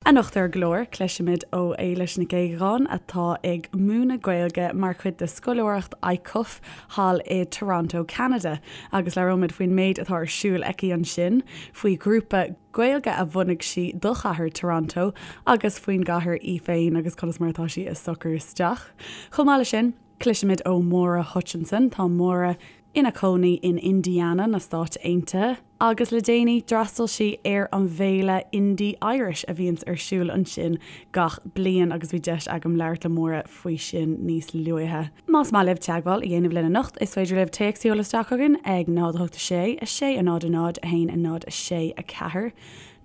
Anocht ar an gclár, cloisfimid ó Éilis Nic Aodhagáin atá ag múineadh Gaeilge mar chuid de scoláireacht ICUF thall i Toronto, Ceanada, agus labhróimid faoin méid atá ar siúl aici ansin, faoi ghrúpa Gaeilge a bhunaigh sí do chathair Toronto agus faoin gcathair í féin agus conas mar atá sí ag socrú isteach. Chomh maith leis sin, cloisfimid ó Mháire Hutchinson. Tá Máire ina cónaí in Indiana na Stáit Aontaithe agus le déanaí d'fhreastail sí ar an bhféile Indy Irish a bhíonns ar siúl ansin gach bliain agus bhí deis agam labhairt le Máire faoi sin níos luaithe. Más maith libh teagmháil a dhéanamh linn anocht is féidir libh téacs a sheoladh isteach chugainn ag 0 8 6 6 0 0 1 0 6 4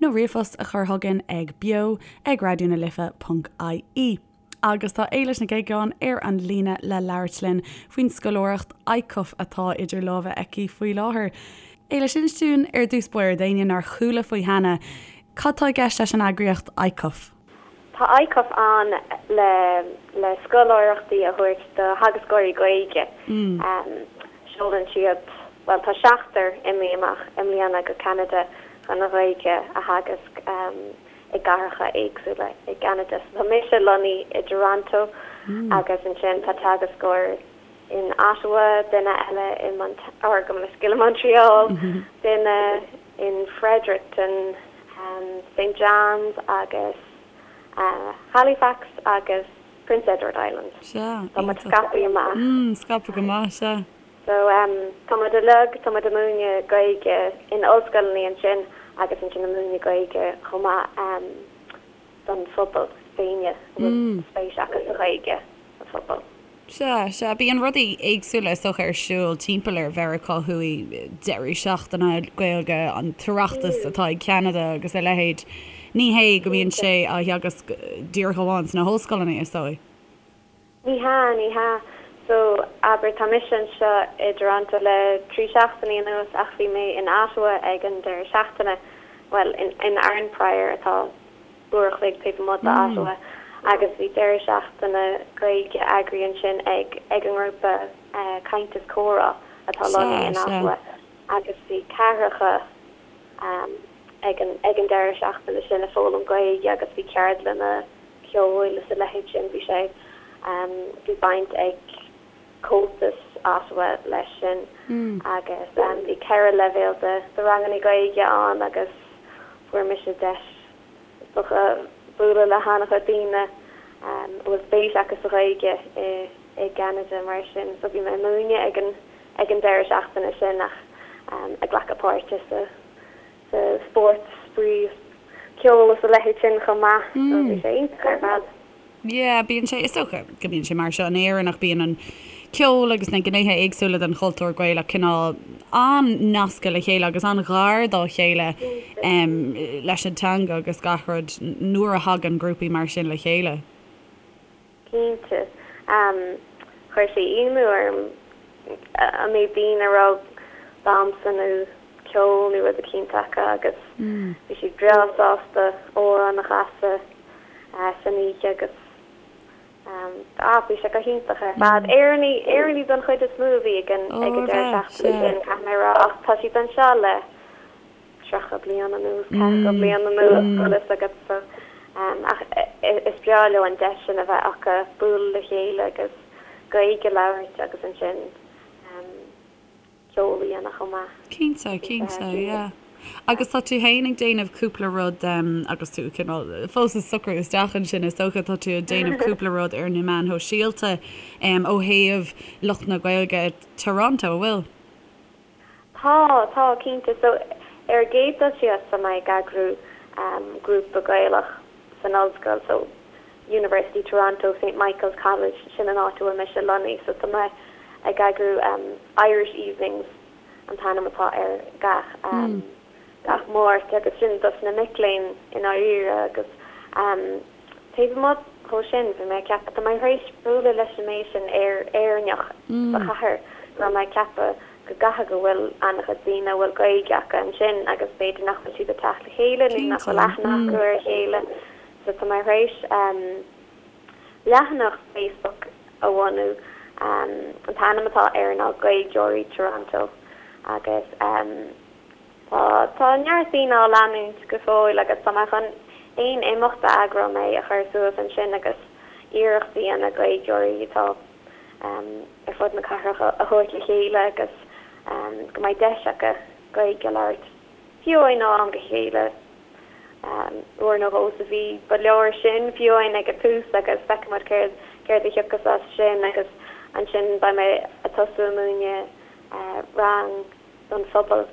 nó ríomhphost a chur chugainn ag beo ag raidionalife ponc ie. Agus tá Éilis Nic Aodhagáin ar an líne le labhairt linn faoin scoláireacht ICUF atá idir lámha aici faoi láthair. Éilis, inis dúinn ar dtús báire, d'éinne nár chuala faoi cheana, cad tá i gceist leis an eagraíocht ICUF? Tá ICUF ann le le scoláireachtaí a thabhairt do theagascóirí Gaeilge. Seolann siad, bhuel tá seachtar imithe amach i mbliana go Ceanada chun an Ghaeilge a theagasc. i gcathracha éagsúla i gCeanada. So tá mise lonnaithe i dToronto agus ansin tá teagascóir in Ottawa, duine eile i Mont-, or gabh mo leithscéal i Montreal, duine in Fredericton, St John's agus Halifax agus Prince Edward Island. Sea, Tá muid scaipthe amach. Scaipthe go maith, sea. So, tá muid uilig, tá muid ag múineadh Gaeilge in ollscoileanna ansin agus ansin ag múineadh Gaeilge chomh maith don phobal, daoine a bhfuil spéis acu sa Ghaeilge sa phobal. Sea, sea, bíonn rudaí éagsúla is dócha ar siúl timpeall ar Mheiriceá Thuaidh, deireadh seachtaine Gaeilge, an tOireachtas atá i gCeanada agus a leithéid. Ní hé go mbíonn sé á theagasc díreach amháin sna hollscoileanna, is dóigh. Ní hea, ní hea. So, abair, tá mise anseo i dToronto le 3 seachtainí anuas ach bhí mé in Ottawa ag an deireadh seachtaine, bhuel, in, in Arnprior atá uair a chloig taobh amuigh d'Ottawa agus bhí deireadh seachtaine Gaeilge eagraithe ansin ag, ag an ngrúpa Caint is Comhrá atá lonnaithe in Ottawa agus bhí ceathracha ag an, ag an deireadh seachtaine sin ag foghlaim Gaeilge agus bhí ceardlanna ceoil is a leithéid sin. Bhí sé, bhí baint ag Comhaltas Ottawa leis sin agus bhí 4 leibhéal de de ranganna Gaeilge ann agus fuair mise deis is dócha bualadh le han-chuid daoine a bhfuil spéis acu sa Ghaeilge i i gCeanada mar sin. So bhí mé ag múineadh ag an ag an deireadh seachtaine sin ach ag glacadh páirte sa sa spórt, spraoi, ceol is a leithéid sin chomh maith. So bhí sé iontach ar fad. Yeah, bíonn sé, is dócha go mbíonn sé mar seo in Éirinn ach bíonn an ceol agus na gnéithe éagsúla den chultúr Gaelach cineál an-nasctha le chéile agus an-ghar dá chéile leis an teanga agus gach rud nuair a thagann grúpaí mar sin le chéile. Cinnte. Chuir sé ionadh orm an méid daoine a raibh damhsa nó ceol nó rud eicínt acu agus bhí siad breá sásta amhrán a chasadh san oíche agus ah bhí sé go hiontach ar fad. Éireannaigh, Éireannaigh don chuid is mó a bhí ag an ag an deireadh seachtaine sin, caithfidh mé a rá, ach tá siad anseo le 30 bliain anuas, 40 bliain anuas, bhfuil fhios agat so ach is breá leo an deis sin a bheith acu bualadh le chéile agus Gaeilge a labhairt agus ansin ceol a dhéanamh chomh maith. Cinnte, cinnte, yeah. Agus tá tú féin ag déanamh cúpla rud agus tú cineál fós ag socrú isteach ansin is dócha, tá tú ag déanamh cúpla rud ar na meáin shóisialta ó thaobh lucht na Gaeilge i Toronto, an bhfuil? Tá, tá, cinnte. So, ar an gcéad dul síos, tá mé ag eagrú grúpa Gaelach san ollscoil, so University Toronto, St Michael's College, sin an áit a bhfuil mise lonnaithe, so tá mé ag eagrú Irish Evenings an t-ainm atá air gach gach Máirt agus sin dos na mic léinn i ndáiríre agus Taobh amuigh dhó sin, bhí mé ag ceapadh, tá mé tar éis bualadh leis an méid sin Éireannach sa chathair go raibh mé ag ceapadh go gcaithfidh go bhfuil an-chuid daoine a bhfuil Gaeilge acu ansin agus b'fhéidir nach bhfuil siad ag teacht le chéile nó nach bhfuil aithne acu ar a chéile. So tá mé tar éis leathanach Facebook a bhunú, an t-ainm atá air ná Gaeilgeoirí Toronto agus. Tá, tá neart daoine á leanúint go fóill agus tá mé chun. aon imeacht a eagróidh mé a chur suas ansin agus iarracht a dhéanamh Gaeilgeoirí atá ar fud na cathrach a thabhairt le chéile agus go mbeidh deis acu Gaeilge a labhairt fiú amháin ó am go chéile, uair nó dhó sa mhí. Ba leor sin fiú amháin ag an tús agus feicfidh muid céard céard a thiocfas as sin agus ansin beidh mé ag tosú ag múineadh rang don phobal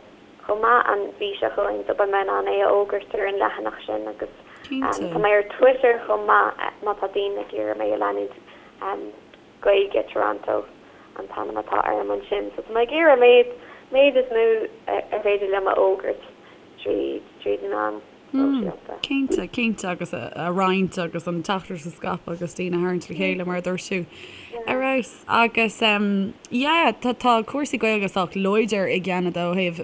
chomh maith an mhí seo chugainn so beidh mé in ann é a fhógairt ar an leathanach sin agus tá mé ar Twitter chomh maith má tá daoine ag iarraidh mé a leanúint Gaeilge Toronto an t-ainm atá orm ansin so tá mé ag iarraidh méid méid is mó ar féidir liom a fhógairt tríd tríd na meáin shóisialta. Cinnte, cinnte agus a roinnt agus an teachtaireacht a scaipeadh agus daoine a tharraingt le chéile mar a dúirt tú. Ar fheabhas. Agus yeah tá tá cúrsaí Gaeilge sách láidir i gCeanada ó thaobh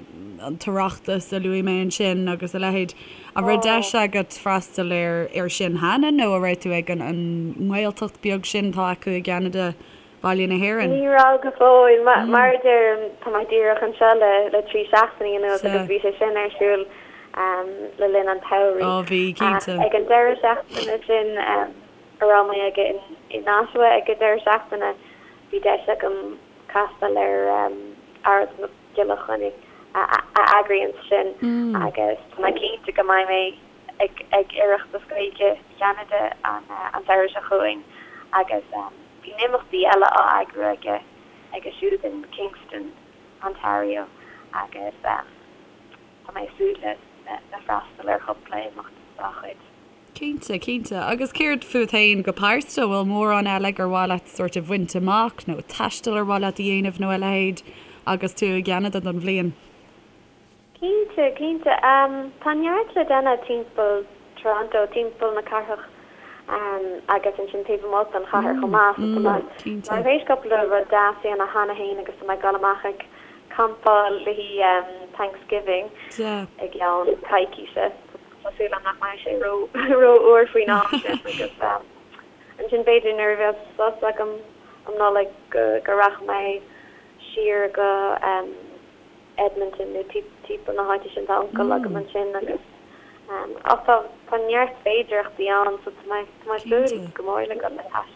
an tOireachtas a luaigh mé ansin agus a leithéid. An raibh deis agat freastal ar ar sin cheana nó an raibh tú ag an an nGaeltacht beag sin atá acu i gCeanada, Baile na hÉireann? Ní raibh go fóill. Mar a deirim, tá mé díreach anseo le le 3 seachtainí anuas agus bhí sé sin ar siúl le linn an tsamhraidh. Ó bhí, cinnte. Ach ag an deireadh seachtaine sin a raibh mé ag in Ottawa ag an deireadh seachtaine, bhí deis agam castáil ar Aralt Mac Giolla Chainnigh a eagraíonn sin agus tá mé cinnte go mbeidh mé ag ag Oireachtas Gaeilge Cheanada an an samhradh seo chugainn agus bíonn imeachtaí eile á eagrú aige aige siúd in Kingston, Ontario agus tá mé ag súil le le freastal ar chúpla imeacht dá chuid. Cinnte, cinnte. Agus céard fút féin go pearsanta? Bhfuil mórán eile gur mhaith leat sórt a bhaint amach nó taisteal ar mhaith leat a dhéanamh nó a leithéid agus tú i gCeanada don bhliain? Cinnte, cinnte. Tá neart le déanamh timpeall Toronto, timpeall na cathrach agus ansin taobh amuigh den chathair chomh maith. So tá mé tar éis cúpla rud deas a dhéanamh cheana féin agus tá mé ag dul amach ag campáil le haghaidh Thanksgiving i gceann coicíse. Tá súil agam nach mbeidh sé ró-fhuar faoin am sin agus ansin b'fhéidir nuair a bheas sos agam um Nollaig go rachaidh mé siar go Edmonton nó timpeall na háite sin, tá uncail agam ansin agus ach tá tá neart féidearthachtaí ann so tá mé tá mé ag súil go mór le dul ag taisteal.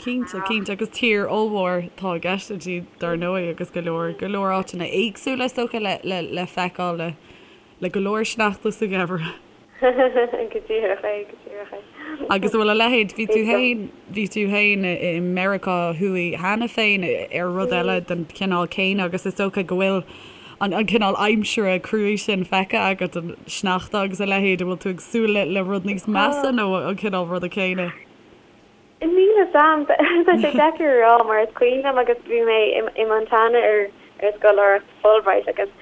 Cinnte, cinnte agus tír ollmhór atá i gceist inti dar ndóigh agus go leor go leor áiteanna éagsúla is dócha le le le feiceáil le Le go leor sneachta sa gheimhreadh. Go díreach é, go díreach é. Agus an bhfuil a leithéid, bhí tú féin, bhí tú féin i Meiriceá Thuaidh cheana féin ar rud eile den chineál céanna agus is dócha go bhfuil an an cineál aimsire cruaidh sin feicthe agat, an sneachta agus a leithéid, an bhfuil tú ag súil le le rud níos measa nó an cineál ruda céanna? Níl a fhios a'm. Tá sé deacair a rá mar is cuimhin liom agus bhí mé i Montana ar ar scoláireacht Fulbright agus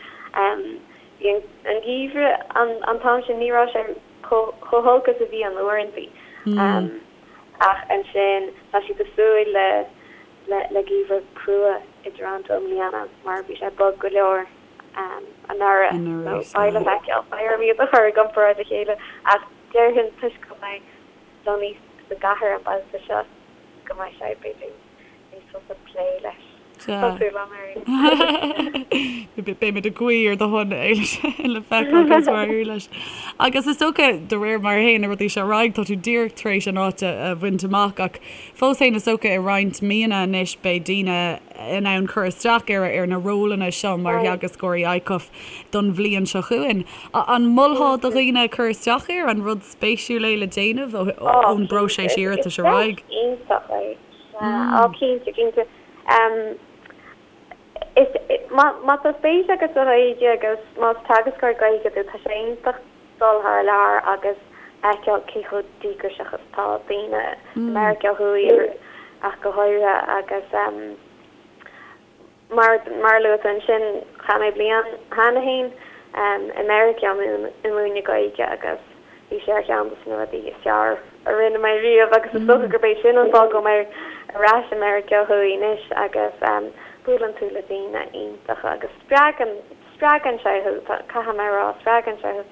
bhí an geimhreadh an t-am sin ní raibh sé chomh holc is a bhíonn uaireantaí ach ansin tá siad ag súil le le geimhreadh crua i dToronto i mbliana mar bhí sé bog go leor anuraidh so beidh le feiceáil. Beidh orm iad a chur i gcomparáid le chéile ach déarfainn toisc go mbeidh lonnaithe sa gcathair an babhta seo go mbeidh sé, b'fhéidir, níos fusa plé leis. Tá súil agam air. Beimid ag guí ar do shon, Éilis, le feiceáil conas mar a éireoidh leis. Agus is dócha, de réir mar a théann na rudaí seo ar aghaidh, tá tú díreach tar éis an áit a bhaint amach ach fós féin is dócha i roinnt míonna anois beidh daoine in ann cur isteach ar ar na rólanna seo mar theagascóirí ICUF don bhliain seo chugainn. An molfá do dhaoine cur isteach air? An rud spéisiúil é le déanamh ón bpróiseas iarratais ar aghaidh? Is deis iontach é. Á, cinnte, cinnte. Is, má tá spéis agat sa Ghaeilge agus más teagascóir Gaeilge tú, tá sé iontach dul thar lear agus fheiceáil cé chomh díograiseach is atá daoine i Meiriceá Thuaidh ach go háirithe agus Mar a luaigh tú ansin, chaith mé bliain cheana féin i Meiriceá ag múineadh Gaeilge agus bhí sé ar cheann de na rudaí is fearr a rinne mé riamh agus is dócha gurb é sin an fáth go bhfuil mé ar ais i Meiriceá Thuaidh anois agus buaileann tú le daoine iontacha agus spreagann, spreagann sé thú, caithfidh mé a rá, spreagann sé thú.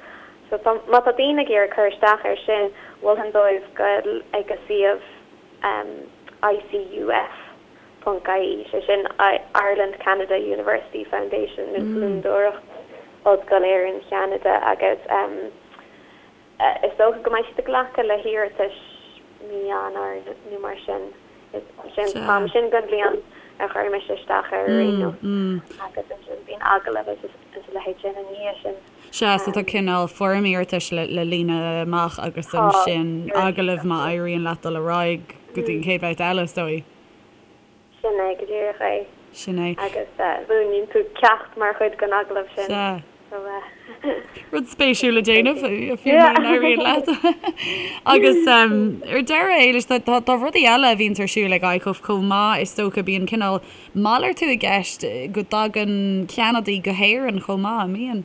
So tá, má tá daoine ag iarraidh cur isteach air sin, mholfainn dóibh goil ag an suíomh ICUF. ponc ie, sé sin Ireland Canada University Foundation nó Fondúireacht Ollscoil Éireann Cheanada agus. Is dócha go mbeidh siad ag glacadh le hiarratais mí Eanáir nó mar sin. Sin an t-am sin den bhliain a chuir mise isteach air ar aon nós. Agus ansin bíonn agallamh agus a leithéid sin ina dhiaidh sin. Sea, so tá cineál foirm iarratais le líonadh amach agus ansin agallamh má éiríonn leat dul ar aghaidh go dtí an chéad bhabhta eile, is dóigh. Sin é go díreach é. Sin é. Agus múineann tú ceacht mar chuid den agallamh sin. Sea. Rud spéisiúil le déanamh, fiú mura n-éiríonn leat. Agus ar deireadh, Éilis, tá rudaí eile a bhíonns ar siúl ag ICUF chomh maith, is dócha. Bíonn cineál malartú i gceist go dtagann Ceanadaigh go hÉirinn chomh maith, an mbíonn?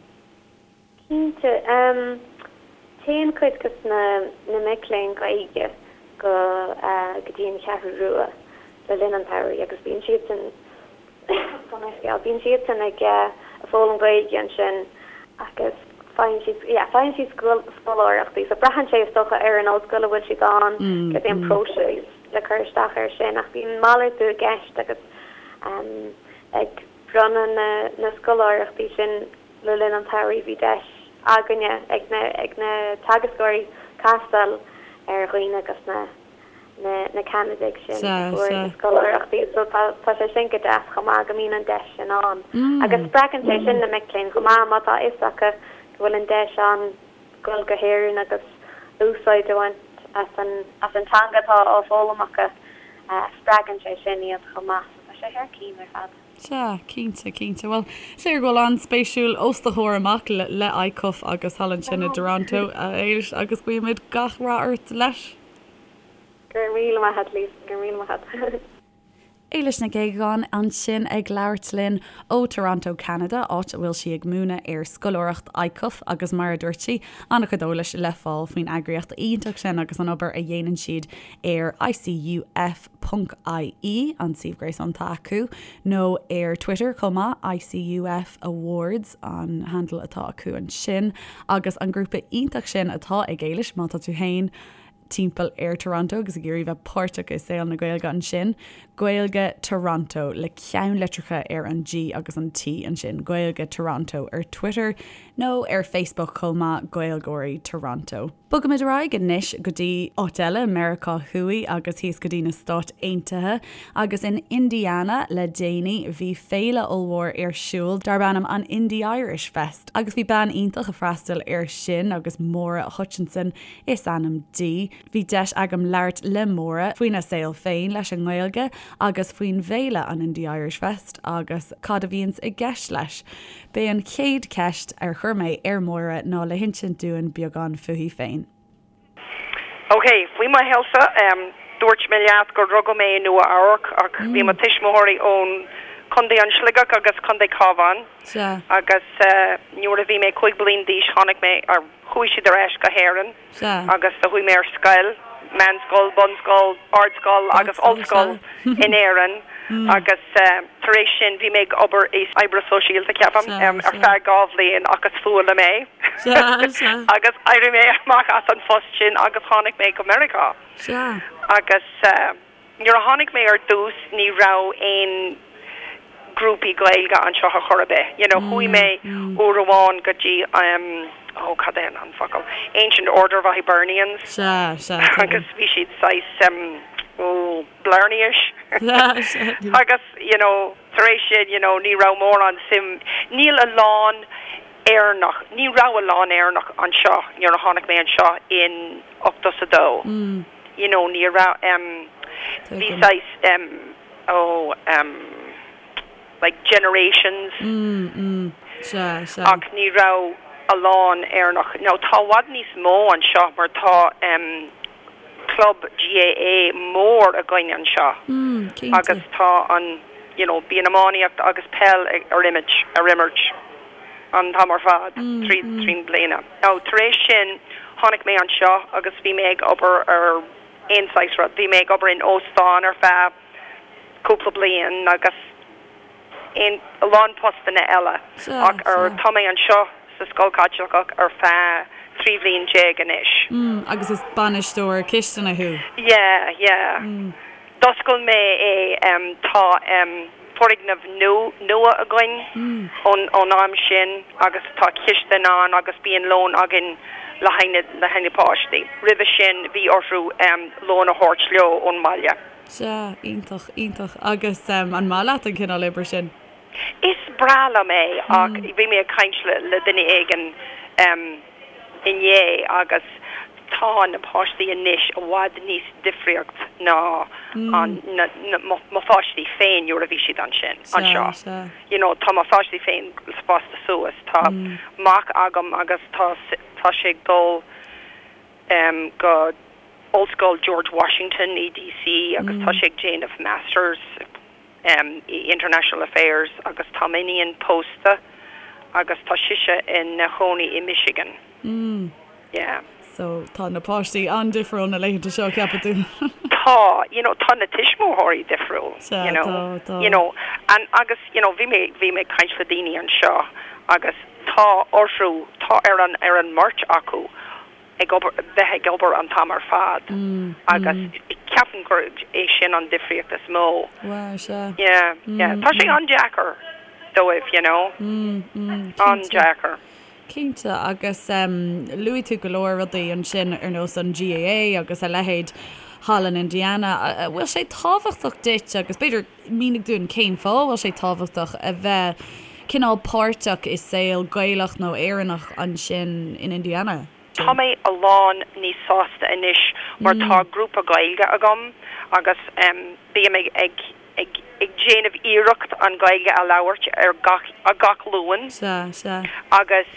Cinnte. Téann cuid de na mic léinn Gaeilge go go dtí an Cheathrú Rua le linn an tsamhraidh agus bíonn siadsan bíonn siadsan ag foghlaim Gaeilge ansin agus faigheann siad yeah faigheann siad scoláireachtaí so braitheann sé is dócha ar an ollscoil a bhfuil siad ann cad é an próiseas le cur isteach air sin ach bíonn malartú i gceist agus ag bronnadh na na scoláireachtaí sin Le linn an tsamhraidh bhí deis againne, ag na ag na teagascóirí, castáil ar dhaoine agus na na na Ceanadaigh sin a fuair na scoláireachtaí so tá tá sé sin go deas chomh maith go mbíonn an deis sin ann. Agus spreagann sé sin na mic léinn chomh maith má tá a fhios acu go bhfuil an deis ann dul go hÉirinn agus úsáid a bhaint as an as an teanga atá á foghlaim acu, spreagann sé sin iad chomh maith so tá sé thar cinn ar fad. Sea, cinnte, cinnte. Bhuel, is léir go bhfuil an-spéisiúil os do chomhair amach le ICUF agus thall ansin i dToronto, a Éilis, agus guímid gach rath ort leis. Go raibh míle maith a't, Lisa, go raibh míle maith a't. Éilis Nic Aodhagáin ansin ag labhairt linn ó Toronto, Ceanada, áit a bhfuil sí ag múineadh ar scoláireacht ICUF agus mar a dúirt sí, an-chuid eolais le fáil faoin eagraíocht iontach sin agus an obair a dhéanann siad ar ICUF. ponc IE, an suíomh gréasáin atá acu, nó ar Twitter chomh maith, ICUF Awards an handle atá acu ansin, agus an grúpa iontach sin atá ag Éilis, má tá tú féin timpeall ar Toronto agus ag iarraidh bheith páirteach i saol na Gaeilge ansin, Gaeilge Toronto, le ceannlitreacha ar an G agus an T ansin, Gaeilge Toronto ar Twitter nó ar Facebook chomh maith, Gaeilgeoirí Toronto. Bogaimid ar aghaidh anois go dtí áit eile, Meiriceá Thuaidh agus thíos go dtí na Stáit Aontaithe. Agus in Indiana le déanaí bhí féile ollmhór ar siúl darb ainm an Indy Irish Fest. Agus bhí bean iontach ag freastal air sin agus Máire Hutchinson is ainm di. Bhí deis agam labhairt le Máire faoina saol féin leis an nGaeilge agus faoin bhféile an Indy Irish Fest agus cad a bhíonns i gceist leis. B'é an chéad cheist ar chuir mé ar Mháire ná le hinsint dúinn beagán fúithi féin. Ok, faoi mo shaolsa, dúirt mé leat gur rugadh mé i Nua Eabhrac ach bhí mo tuismitheoirí ón Contae an Sligeach agus Contae Cabhán agus nuair a bhí mé 5 bliain d'aois tháinig mé, chuaigh siad ar ais go hÉirinn. Agus do chuaigh mé ar scoil, meánscoil, bunscoil, ardscoil agus ollscoil in Éirinn agus tar éis sin bhí mé ag obair i oibre sóisialta, ceapaim, ar feadh 2 bhliain ach is fuath liom é agus d'éirigh mé amach as an phost sin agus tháinig mé go Meiriceá agus. Nuair a tháinig mé ar dtús ní raibh aon grúpaí Gaeilge anseo ar chor ar bith. You know chuaigh mé uair amháin go dtí um oh cad é an focal? Ancient Order of Hibernians Sea, sea, agus bhí siad saghas um oh Blarney-ish agus you know tar éis sin you know ní raibh mórán suim, níl a lán Éireannach, ní raibh a lán Éireannach anseo nuair a tháinig mé anseo in 82. You know ní raibh em bhí saghas em oh em like generations ach ní raibh a lán Éireannach. Now tá i bhfad níos mó anseo mar tá em club GAA mór againn anseo agus tá an you know bíonn iománaíocht agus peil ar imirt ar imirt an t-am ar fad tríd trín bliana. Now tar éis sin tháinig mé anseo agus bhí mé ag obair ar aon saghas rud. Bhí mé ag obair in óstán ar feadh cúpla bliain agus aon a lán postanna eile ach ar tá mé anseo sa scoil Chaitliceach ar feadh 13 bhliain anois. Mm, agus is bainisteoir cistine thú? Yeah, yeah. D'oscail mé é, tá foirgneamh nua againn ón am sin agus tá cistin ann agus bíonn lón againn. Le haghaidh le haghaidh na páistí. Roimhe sin bhí orthu lón a thabhairt leo ón mbaile. Sea, iontach, iontach. Agus an maith leat an cineál oibre sin? Is breá liom é ach bhí mé ag caint le duine éigin inné agus tá na páistí anois i bhfad níos difríocht ná an na mo pháistí féin nuair a bhí siad ansin, anseo. You know tá mo pháistí féin fásta suas, tá mac agam agus tá tá sé ag dul go Ollscoil George Washington i DC agus tá sé ag déanamh Masters i International Affairs agus tá m'iníon pósta agus tá sise ina chónaí i Michigan. Yeah. So tá na páistí an-difriúil na laethanta seo, ceapann tú? Tá, you know, tá na tuismitheoirí difriúil, Sea, you know, tá, tá. you know, and agus, you know, bhí mé, bhí mé ag caint le daoine anseo agus tá orthu, tá ar an, ar an mbeirt acu ag obair, bheith ag obair an t-am ar fad agus ceapaim gur é sin an difríocht is mó. Wow, sea. Yeah, yeah. Tá sé an-deacair dóibh, you know. An-deacair. Cinnte, agus luaigh tú go leor rudaí ansin ar nós an GAA agus a leithéid thall in Indiana. An bhfuil sé tábhachtach duit, agus b'fhéidir mínigh dúinn cén fáth a bhfuil sé tábhachtach a bheith cineál páirteach i saol Gaelach nó Éireannach ansin in Indiana? Tá mé a lán níos sásta anois mar tá grúpa Gaeilge agam agus bím ag ag ag déanamh iarracht an Ghaeilge a labhairt ar gach gach Luan. Sea, sea. Agus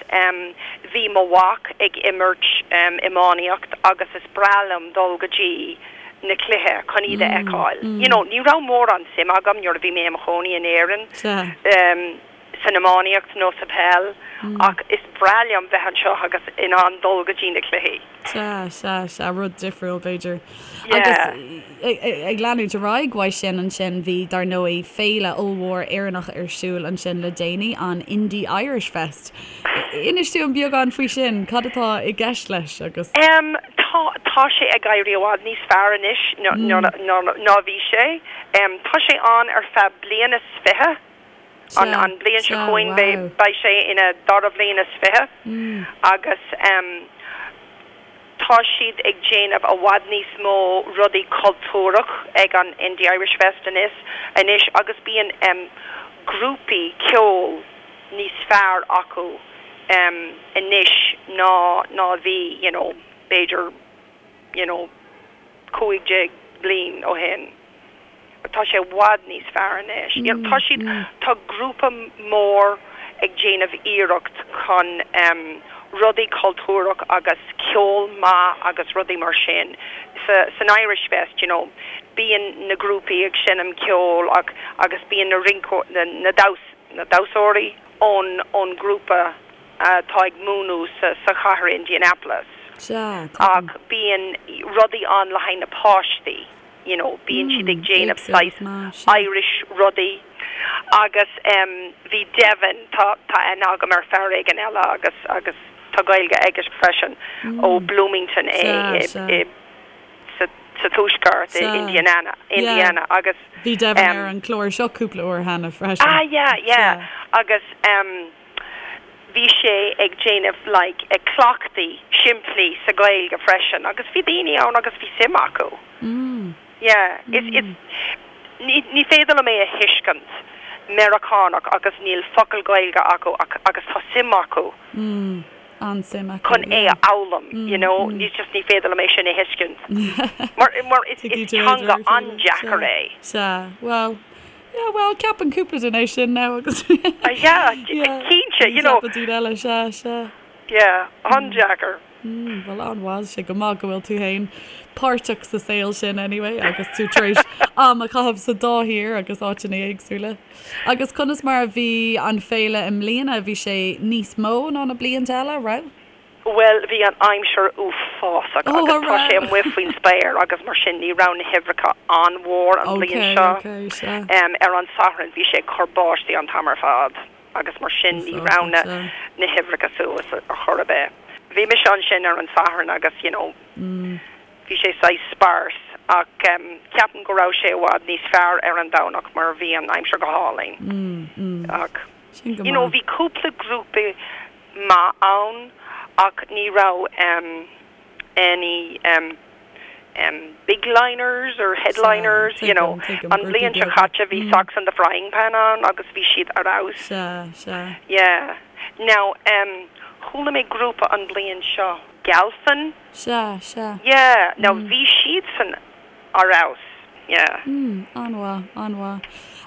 bhí mo mhac ag imirt iománaíocht agus is breá liom dul go dtí na cluiche chun iad a fheiceáil. You know, ní raibh mórán suim agam nuair a bhí mé i mo chónaí in Éirinn. Sea. san iománaíocht nó sa peil ach is breá liom bheith anseo agus in ann dul go dtí na cluichí. Sea, sea, sea, rud difriúil b'fhéidir. Agus ag leanúint ar aghaidh uaidh sin ansin bhí dar ndóigh féile ollmhór Éireannach ar siúl ansin le déanaí, an Indy Irish Fest. Inis dúinn beagán faoi sin, cad atá i gceist leis agus. Em, tá, tá sé ag éirí i bhfad níos fearr anois ná bhí sé. Em, tá sé ann ar feadh bliain is 20. An bhliain seo chugainn beidh sé ina dara bhliain is 20 agus tá siad ag déanamh i bhfad níos mó rudaí cultúrach ag an Indy Irish Fest anois agus bíonn grúpaí ceoil níos fearr acu anois ná ná a bhí you know b'fhéidir you know 15 bliain ó shin. Tá sé i bhfad níos fearr anois. You know, tá siad, tá grúpa mór ag déanamh iarracht chun rudaí cultúrach agus ceol maith agus rudaí mar sin. Sa, san Irish Fest, you know, bíonn na grúpaí ag seinm ceoil ach, agus bíonn na rinceoirí, na, na damhs, na damhsóirí ón, ón ngrúpa atá ag múineadh sa, sa chathair Indianapolis. Sea, tuigim. Ach bíonn rudaí ann le haghaidh na páistí. you know bíonn siad ag déanamh saghas Irish rudaí agus em bhí Devin, tá tá aithne agam ar fear éigin eile agus agus tá Gaeilge aige freisin ó Bloomington é i i sa sa tuaisceart i Indiana Indiana agus Bhí Devin ar an chlár seo cúpla uair cheana freisin. Ah yeah yeah agus em bhí sé ag déanamh like ag cleachtaí simplí sa Ghaeilge freisin agus bhí daoine ann agus bhí suim acu. Yeah is is ní ní féidir liom é a thuiscint Meiriceánach agus níl focal Gaeilge acu ach agus tá suim acu An-suim acu chun é a fhoghlaim you know ní just ní féidir liom é sin a thuiscint mar mar is is teanga an-deacair é. Sea, bhuel Yeah, bhuel, ceapann cúpla duine é sin now agus Yeah, cinnte, you know. Ceapann daoine eile, sea, sea. Yeah, an-deacair. Mm, bhuel, an-mhaith, sé go maith go bhfuil tú féin páirteach sa saol sin anyway agus tú tar éis am a chaitheamh sa dá thír agus áiteanna éagsúla. Agus conas mar a bhí an féile i mbliana, bhí sé níos mó ná na blianta eile, raibh? Bhuel, bhí an aimsir uafásach agus tá sé amuigh faoin spéir agus mar sin ní raibh na huimhreacha an-mhór an bhliain seo. Ar an Satharn bhí sé ag cur báistí an t-am ar fad agus mar sin ní raibh na na huimhreacha suas ar chor ar bith. Bhí mise ansin ar an Satharn agus you know bhí sé saghas sparse ach ceapaim go raibh sé i bhfad níos fearr ar an Domhnach mar bhí an aimsir go hálainn. Ach you know bhí cúpla grúpa maith ann. Ach ní raibh em any em em big liners or headliners, you know. An bhliain seo caite bhí Socks in the Frying Pan ann agus bhí siad ar fheabhas. Sea, sea. Yeah. Now em chuala mé grúpa an bhliain seo, Galfin. Sea, sea. Yeah, now bhí siadsan ar fheabhas, yeah. Mm, an-mhaith, an-mhaith.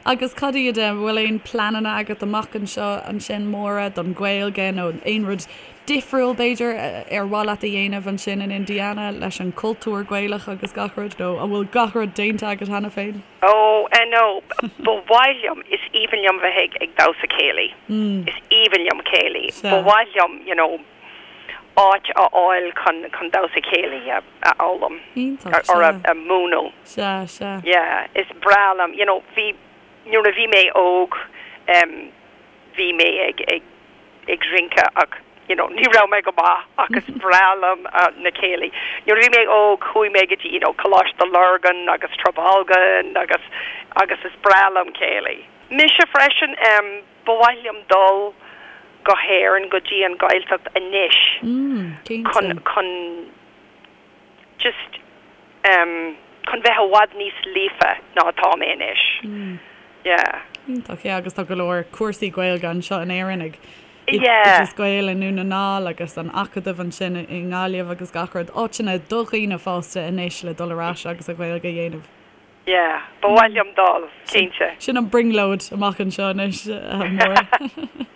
Agus cad iad, an bhfuil aon pleananna agat amach anseo ansin, Máire, don Ghaeilge nó aon rud difriúil b'fhéidir ar mhaith leat a dhéanamh ansin in Indiana leis an cultúr Gaelach agus gach rud nó an bhfuil gach rud déanta agat cheana féin? Oh, eh no, ba mhaith liom, is aoibhinn liom bheith ag, ag damhsa céilí. Is aoibhinn liom céilí. Ba mhaith liom, you know, áit a fháil chun, chun damhsa céilí a, a fhoghlaim. Iontach, Or a, sea. a mhúineadh. Sea, sea. Yeah, is breá liom, you know, bhí, nuair a bhí mé óg, em, bhí mé ag, ag, ag rince ach, you know, ní raibh mé go maith ach is breá liom na céilí. Nuair a bhí mé óg chuaigh mé go dtí, you know, Coláiste Lurgan agus Trabolgan agus, agus is breá liom céilí. Mise freisin, em, ba mhaith liom dul go hÉirinn, go dtí an Ghaeltacht anois chun, chun, just em chun bheith i bhfad níos líofa ná atá mé anois. Yeah. Iontach, yeah, agus tá go leor cúrsaí Gaeilge anseo in Éirinn ag Oideas Gael i nDún na nGall agus an Acadamh ansin i nGaillimh agus gach rud, áiteanna do dhaoine fásta anois le dul ar ais agus an Ghaeilge a dhéanamh. Yeah, ba mhaith liom dul, cinnte. Sin an brionglóid amach anseo anois, a Mháire.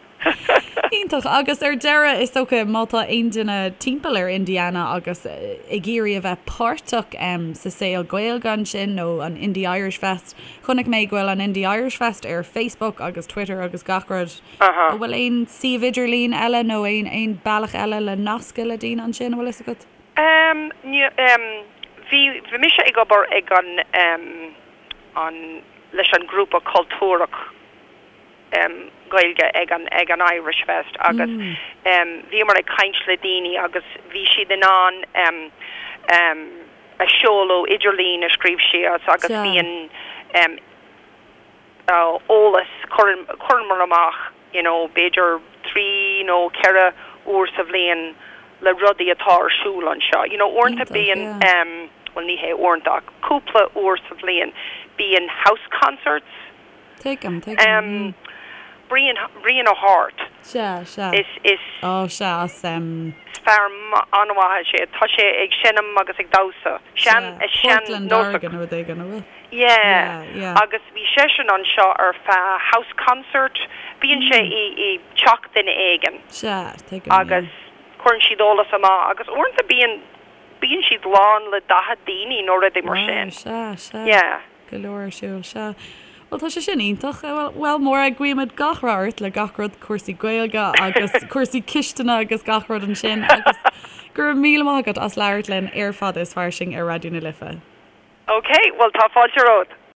Iontach. Agus ar deireadh, is dócha, má tá aon duine timpeall ar Indiana agus ag iarraidh a bheith páirteach sa saol Gaeilge ansin nó an Indy Irish Fest, chonaic mé go bhfuil an Indy Irish Fest ar Facebook agus Twitter agus gach rud. An bhfuil aon suíomh idirlín eile nó aon bealach eile le nascadh le daoine ansin, an bhfuil fhios agat? Em, ní, em, bhí, bhí mise ag obair ag an, em, an, leis an grúpa cultúrach, em, Gaeilge ag an, ag an Irish Fest agus, em, bhíomar ag caint le daoine agus bhí siad in ann, em, em, a seoladh idirlín a scríobh síos agus bíonn, em, eolas, cuireann, chuireamar amach you know b'fhéidir 3 nó 4 uair sa bhliain le rudaí atá ar siúl anseo. You know uaireanta bíonn em bhuel ní hé uaireanta ach cúpla uair sa bhliain bíonn house concerts. Tuigim, tuigim. Em Brian, Brian O'Hart. Sea, sea. Is, is. Ó sea, as em. Is fear an-mhaith é. Tá sé ag seinm agus ag damhsa. Sean, sean, Portland, Oregon nó rud éigin, an bhfuil? Yeah. Yeah. Agus bhí seisean anseo ar feadh house concert. Bíonn sé i i teach duine éigin. Sea, tuigim, yeah. Agus cuireann siad eolas amach agus uaireanta bíonn bíonn siad lán le 40 daoine nó rudaí mar sin. Wow, sea, sea. Yeah. Go leor ar siúl, sea. Bhuel, tá sé sin iontach. Bhuel, bhuel, Máire, guímid gach rath ort le gach rud, cúrsaí Gaeilge agus cúrsaí cistine agus gach rud ansin agus go raibh míle maith agat as labhairt linn ar Fada is Fairsing ar Raidió na Life. Ok, bhuel tá fáilte romhat.